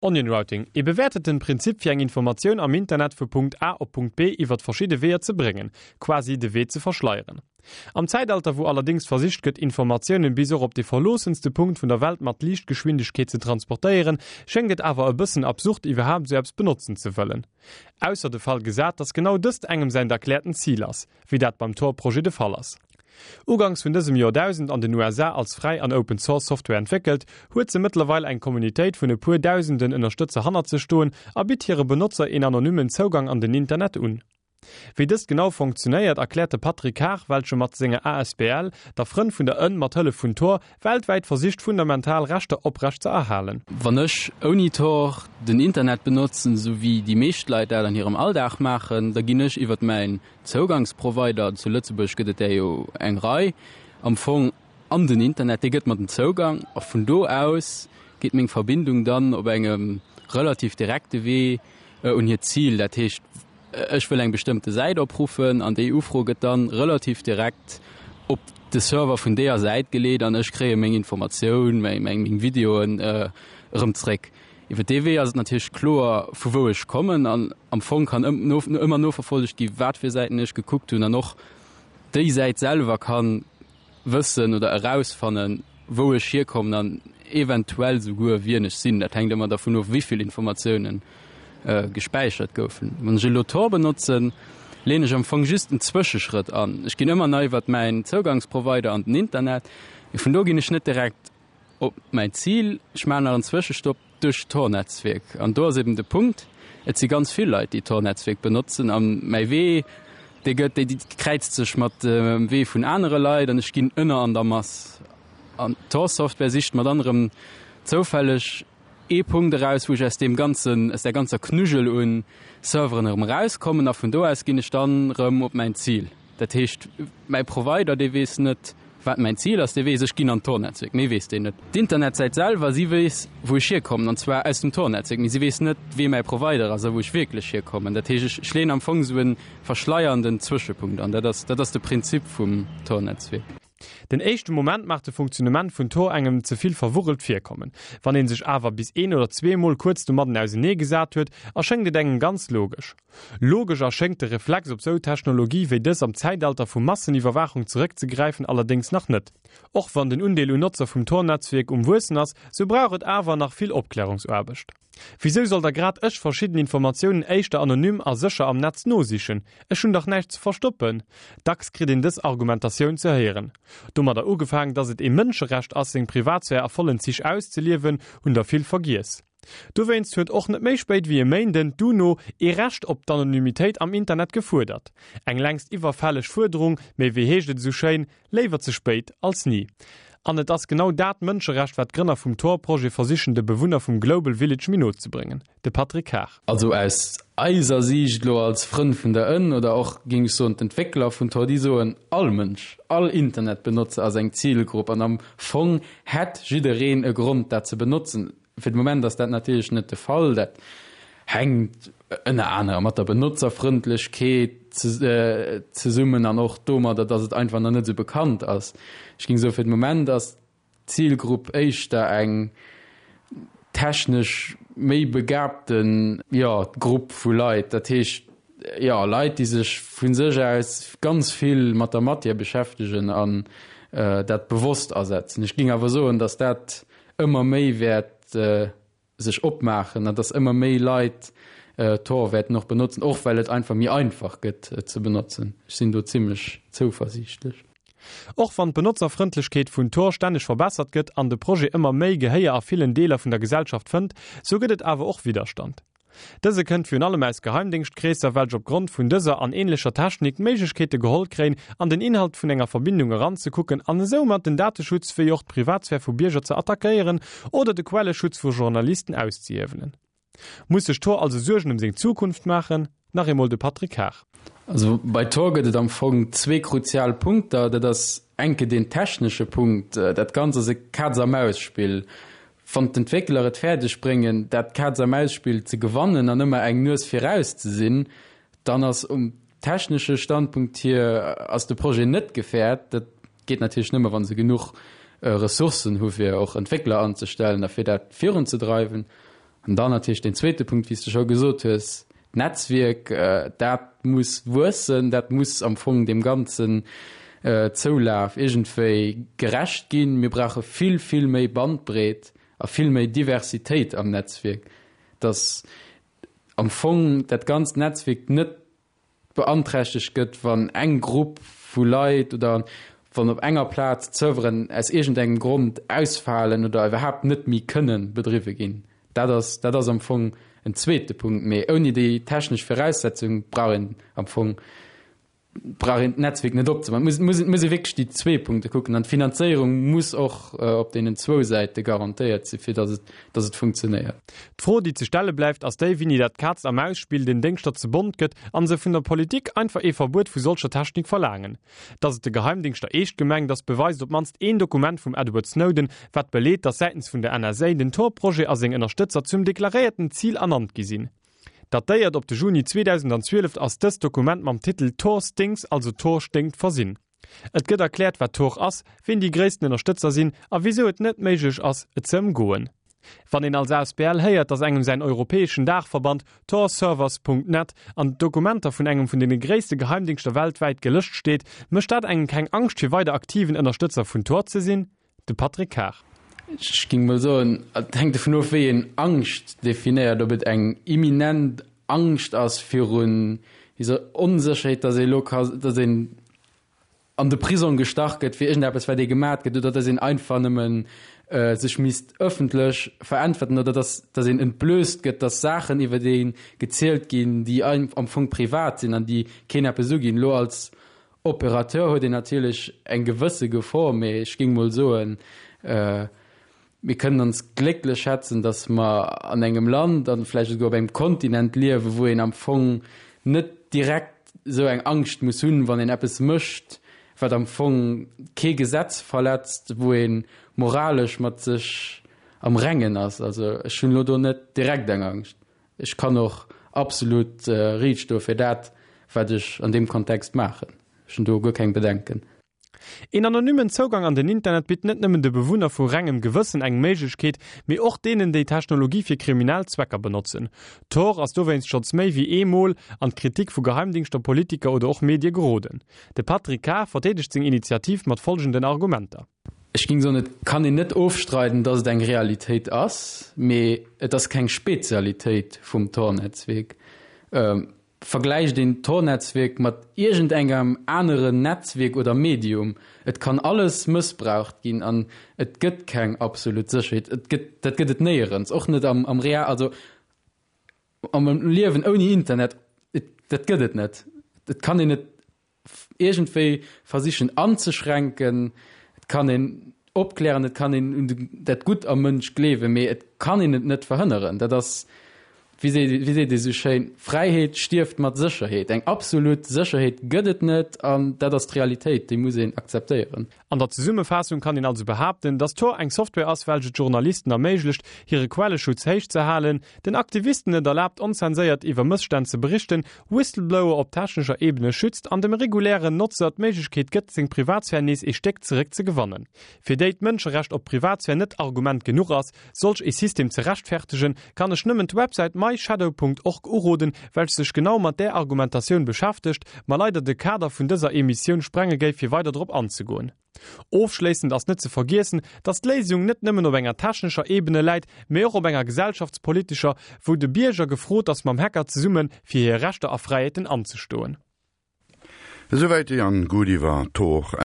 Onion Routing, ee bewäerteten Prinzip fir eng Informatioun am Internet vu Punkt A op Punkt B iwwert verschidde Weeër ze bréngen, quasi de Wee ze verschleieren. Am Zäitalter wou allerdéngs versicht gëtt Informatiounen bis och op de verloossenste Punkt vun der Welt mat Liichtgeschwindegkeet ze transportéieren, schéngt et awer e bëssen absurd iwwerhaapt esou eppes benotzen ze wëllen. Ausser de Fall gesat, dass genau dëst engem säint erkläerten Zil ass, wéi dat beim Tor-Projet de Fall ass. Uganks vun dësem Joerdausend an den USA als fräi an Open Source Software entwéckelt, huet se mëttlerweil eng Communitéit vun e puer dausenden Ënnerstëtzer hannert sech stoen a bitt hire Benotzer een anonymmen Zougang an den Internet un. Wéi dëst genau funktionéiert, erkläert de Patrick Haag, welche mat senger asbl, der Frënn vun der Ënn, mat Hëllef vun Tor, weltwäit versicht fundamental Rechter oprecht ze erhalen. Wann ech ouni Tor den Internet benotzen, esou wéi déi meescht Leit dat an hirem Alldag maachen, da ginn ech iwwert mäin Zougangsprovider, zu Lëtzebuerg gëtt et där jo eng Rei, am Fong an den Internet, dee gëtt mer den Zougang a vun do aus geet meng Verbindung dann op engem relativ direkte Wee un hiert Zil. Dat heescht, ech wëll eng bestëmmte Säit opruffen an déi Ufro gëtt dann relativ direkt op de Server vun deeër Säit geleet an ech kréie meng Informatioun, meng Videoen erëm zréck. Iwwer dee Wee ass et natierlech kloer, vu wou ech kommen an am Fong kann ëmmer noverfollegt gi wat fir Säiten ech gekuckt hunn an och déi Säit selwer ka wëssen oder erausfannen, wou ech hierkommen an eventuell souguer wien ech sinn. Dat hänkt ëmmer dervun of, wéi vill Informatioune gespäichert goufen. Wann ech elo Tor benotzen, leeën ech am Fong just en Zwëscheschrëtt an. Ech ginn ëmmer nach iwwer mäin Zougangsprovider an den Internet, mee vun do ginn ech net direkt Op mäin Zil, ech maachen nach en Zwëschestopp duerch d'Tor-Netzwierk. An do ass eben de Punkt, et si ganz vill Leit, déi d'Tor-Netzwierk benotzen. A mäi Wee, dee gëtt, dee kräizt sech mat dem Wee vun anere Leit an ech ginn ënner an der Mass. An d'Tor-Software sicht mat anerem zoufälleg ee Punkt eraus, wou ech aus deem ganzen, aus där ganzer Knuggel un Serveren erëm erauskommen a vun do aus ginn ech dann erëm op mäin Zil. Dat heescht, mäi Provider, dee weess net, wat mäin Zil ass, dee weess, ech ginn an d'Tor-Netzwierk, méi weess deen net. D'Internetsäit selwer, si weess, wou ech hierkommen, an zwar aus dem Tor-Netzwierk, mee si weess net, wee mäi Provider ass a wou ech wierklech hierkommen. Dat heescht, ech leeën am Fong esou e verschleiernden Zwëschepunkt an. Dat ass, dat ass de Prinzip vum Tor-Netzwierk. Den éischte Moment mag de Funktionnement vun Tor engem ze vill verwurrelt virkommen. Wann een sech awer bis een oder zweemol kuerz domadden ausenee gesat huet, erschéngt et engem ganz logesch. Logesch erschéngt de Reflex op sou Technologie wéi dës am Zäitalter vu Masseniwwerwaachung zeréckzegräifen allerdéngs nach net. Och wann den Undeel un Notzer vum Tor-Netzwierk um wuessen ass, sou brauch et awer nach vill Opklärungsaarbecht. Wisou soll da grad ech verschidden Informatiounen éischter anonym a sécher am Netz nosichen? Ech hunn dach näischt ze verstoppen! Dacks kritt een dës Argumentatioun ze héieren. Domadder ugefaang, dass et ee Mënscherecht ass, seng Privatsphär a vollen Zich auszeliewen, hunn der vill vergiess. Dowéinst huet och net méi spéit wéi e Méinden d'UNO ee Recht op d'Anonymitéit am Internet gefuerdert. Eng längst iwwerfälleg Fuerderung, mee wéi heescht et esou schéin, Léiwer ze spéit als ni. An et ass genau dat Mënscherecht, wat d'Grënner vum Tor-Projet versichen de Bewunner vum Global Village méi no ze bréngen. De Patrick Haag. Also aus eiser Siicht elo als Frënn vun der Ënn oder och, géing ech soen, d'Entwéckler vun Tor, déi soen, all Mënsch, all Internetbenotzer ass eng Zilgrupp an am Fong hätt jiddereen e Grond dat ze benotzen. Fir de Moment ass dat natierlech net de Fall. Dat hänkt ënner anerem mat der Benotzerfrëndlechkeet zesummen an och domadder, datt et einfach nach net esou bekannt ass. Ech géing soen, fir de Moment ass d'Zilgrupp éischter eng technesch méi begabten, jo, Grupp vu Leit. Dat heescht, jo, Leit, déi sech vu sech aus ganz vill mat der Matière beschäftegen an dat bewosst asetzen. Ech géing awer soen, datt dat ëmmer méi wäert sech opmaachen an dass ëmmer méi Leit Tor wäerten och benotzen, och well et einfach méi einfach gëtt et ze benotzen. Ech sinn do zimmlech zouversiichtlech. Och wann d'Benotzerfrëndlechkeet vun Tor stänneg verbessert gëtt an de Projet ëmmer méi Gehéier a villen Deeler vun der Gesellschaft fënnt, sou gëtt et awer och Widderstand. Dëse kënnt virun allem aus Geheimdéngschtkreesser, welch op Grond vun dëser an ähnlecher Technik d'Méiglechkeete geholl kréien, an den Inhalt vun enger Verbindung eranzekucken an esoumat den Dateschutz wéi och d'Privatsphär vu Bierger ze attackéieren oder de Quelleschutz vu Journalisten auszehiewelen. Muss sech Tor also Suergen ëm seng Zukunft maachen? Nach eemol de Patrick Haag. Also bei Tor gëtt et am Fong zwee kruzial Punkter. Dat ass enke deen technesche Punkt. Dat Ganzt ass e Kaz-a-Maus-Spill. Wann d'Entwéckler et fäerdeg bréngen, dat Kaz-a-Maus-Spill ze gewannen an ëmmer eng Nues viraus ze sinn, dann ass um technesche Standpunkt hier ass de Projet net gefährt. Dat geet natierlech nëmme, wa se genuch Ressourcen hu fir och Entwéckler anzestellen a fir dat virunzedreiwen. An dann natierlech deen zweete Punkt, wéi s de scho gesot hues, d'Netzwierk, dat muss wuessen, dat muss am Fong deem ganzen Zoulaf iergendwéi gerecht ginn. Mir brauche vill, vill méi Bandbreet a vill méi Diversitéit am Netzwierk, dass am Fong dat ganzt Netzwierk net beanträchtegt gëtt, wann eng Grupp vu Leit oder wann op enger Plaz d'Serveren aus iergendengem Grond ausfalen oder iwwerhaapt net méi kënne bedriwwe ginn. Dat ass, dat ass am Fong en zweete Punkt. Mee ouni déi technesch Viraussetzung brauch een am Fong brauch een d'Netzwierk net opzemaachen. Et muss, muss ee wierklech déi zwee Punkte kucken an d'Finanzéierung muss och op deenen zwou Säite garantéiert sinn, fir datt et, datt et funktionéiert. D'Fro, déi ze stelle bleift, ass déi, wéini dat Kaz a Maus-Spill den Déngschter ze bont gëtt an se vun der Politik einfach ee Verbuet vu solcher Technik verlaangen. Datt et de Geheimdingschter eescht gemengt ass, beweist op d'mannst een Dokument vum Edward Snowden, wat beleet, datt säitens vun der NSA den Tor-Projet a seng Ënnerstëtzer zum deklaréierten Zil ernannt gi sinn. Datéiert op de Juni 2012 ass dëst Dokument mam Titel Tor Stinks, also Tor sténkt, versinn. Et gëtt erkläert wat Tor ass, wien déi gréissten Ënnerstëtzer sinn a wisou et net méiglech ass et ze ëmgoen. Wann een als asbl héiert, datt engem säin europäeschen Daachverband Torservers. Net an d'Dokumenter vun engem vun deene gréisste Geheimdingschter weltwäit gelëscht steet, mécht dat engem keng Angscht fir weider aktiven Ënnerstëtzer vun Tor ze sinn? De Patrick Kar. Ech géing mol soen, et hänkt dovun of, wéi een Angscht definéiert, ob et eng imminent Angscht ass virun dieser Onsécherheet, datt ee elo ka, datt een an de Prisong gestach gëtt fir iergendeppes, wat ee gemat gëtt, oder datt een einfach nëmmen sech misst ëffentlech veräntwerten oder datt, datt een entblößt gëtt, datt Saachen iwwer ee gezielt ginn, déi am Fong privat sinn an déi keen eppes uginn. Elo als Opérateur huet een natierlech eng gewësse Gefor, mee ech géing mol soen, mir kënnen ons glécklech schätzen, datt mer an engem Land an vläicht esouguer op engem Kontinent liewen, wou een am Fong net direkt esou eng Angscht muss hunn, wann een eppes mécht, wat am Fong kee Gesetz verletzt, wou ee moralesch mat sech am Rengen ass. Also ech hunn elo do net direkt eng Angscht. Ech kann och absolut riicht stoe fir dat, wat ech an deem Kontext maachen. Ech hunn do guer keng Bedenken. Een anonymen Zougang an den Internet bitt net nëmmen de Bewunner vu rengem Gewëssen eng Méiglechkeet, mee och deenen, déi Technologie fir kriminell Zwecker benotzen. Tor ass dowéinst schonns méi wéi ee Mol an d'Kritik vu Geheimdingschter, Politiker oder och Medie geroden. De Patrick Kar verdeedegt seng Initiativ mat folgenden Argumenter. Ech géing soen, et kann een net ofstreiden, datt et eng Realitéit ass, mee et ass keng Spezialitéit vum Tor-Netzwierk. Vergläicht een d'Tor-Netzwierk mat iergendengem aneren Netzwierk oder Medium, et kann alles mëssbraucht ginn an et gëtt keng absolut Sécherheet. Et gëtt, dat gëtt et néierens, och net am, am Real, also am Liewen ouni Internet, et, dat gëtt et net. Et kann een et iergendwéi versichen anzeschränken. Et kann een opklären, et kann een un dat Gutt am Mënsch gleewen, mee et kann een et net verhënneren. Dat ass, wéi seet, wéi seet ee sou schéin, Fräiheet stierft mat Sécherheet. Eng absolut Sécherheet gëtt et net an dat ass d'Realitéit, déi muss een akzeptéieren. An der Zesummefaassung kann een also behaapten, dass Tor eng Software ass, welch et Journalisten erméiglecht, hire Quelleschutz héich ze halen, den Aktivisten et erlaabt, onzenséiert iwwer Mësstänn ze berichten, Whistleblower op technescher Ebene schützt an dem regulären Notzer d'Méiglechkeet gëtt, seng Privatsphär nees ee Stéck zeréck ze gewannen. Fir déi d'Mënscherecht op Privatsphär net Argument genuch ass, solch ee System ze rechtfertegen, kann ech nëmmen d'Websäit myshadow.org uroden, welch sech genau mat där Argumentatioun beschäftegt, ma leider de Kader vun dëser Emissioun sprenge géif fir weider drop anzegoen. Ofschléissend ass net ze vergiessen, dass d'Léisung net nëmmen op enger technescher Ebene läit, mee och op enger gesellschaftspolitescher, wou de Bierger gefrot ass mam Hacker zesumme fir hir Rechter a Fräiheeten anzestoen. Esouwäit de Jan Guth iwwer Tor.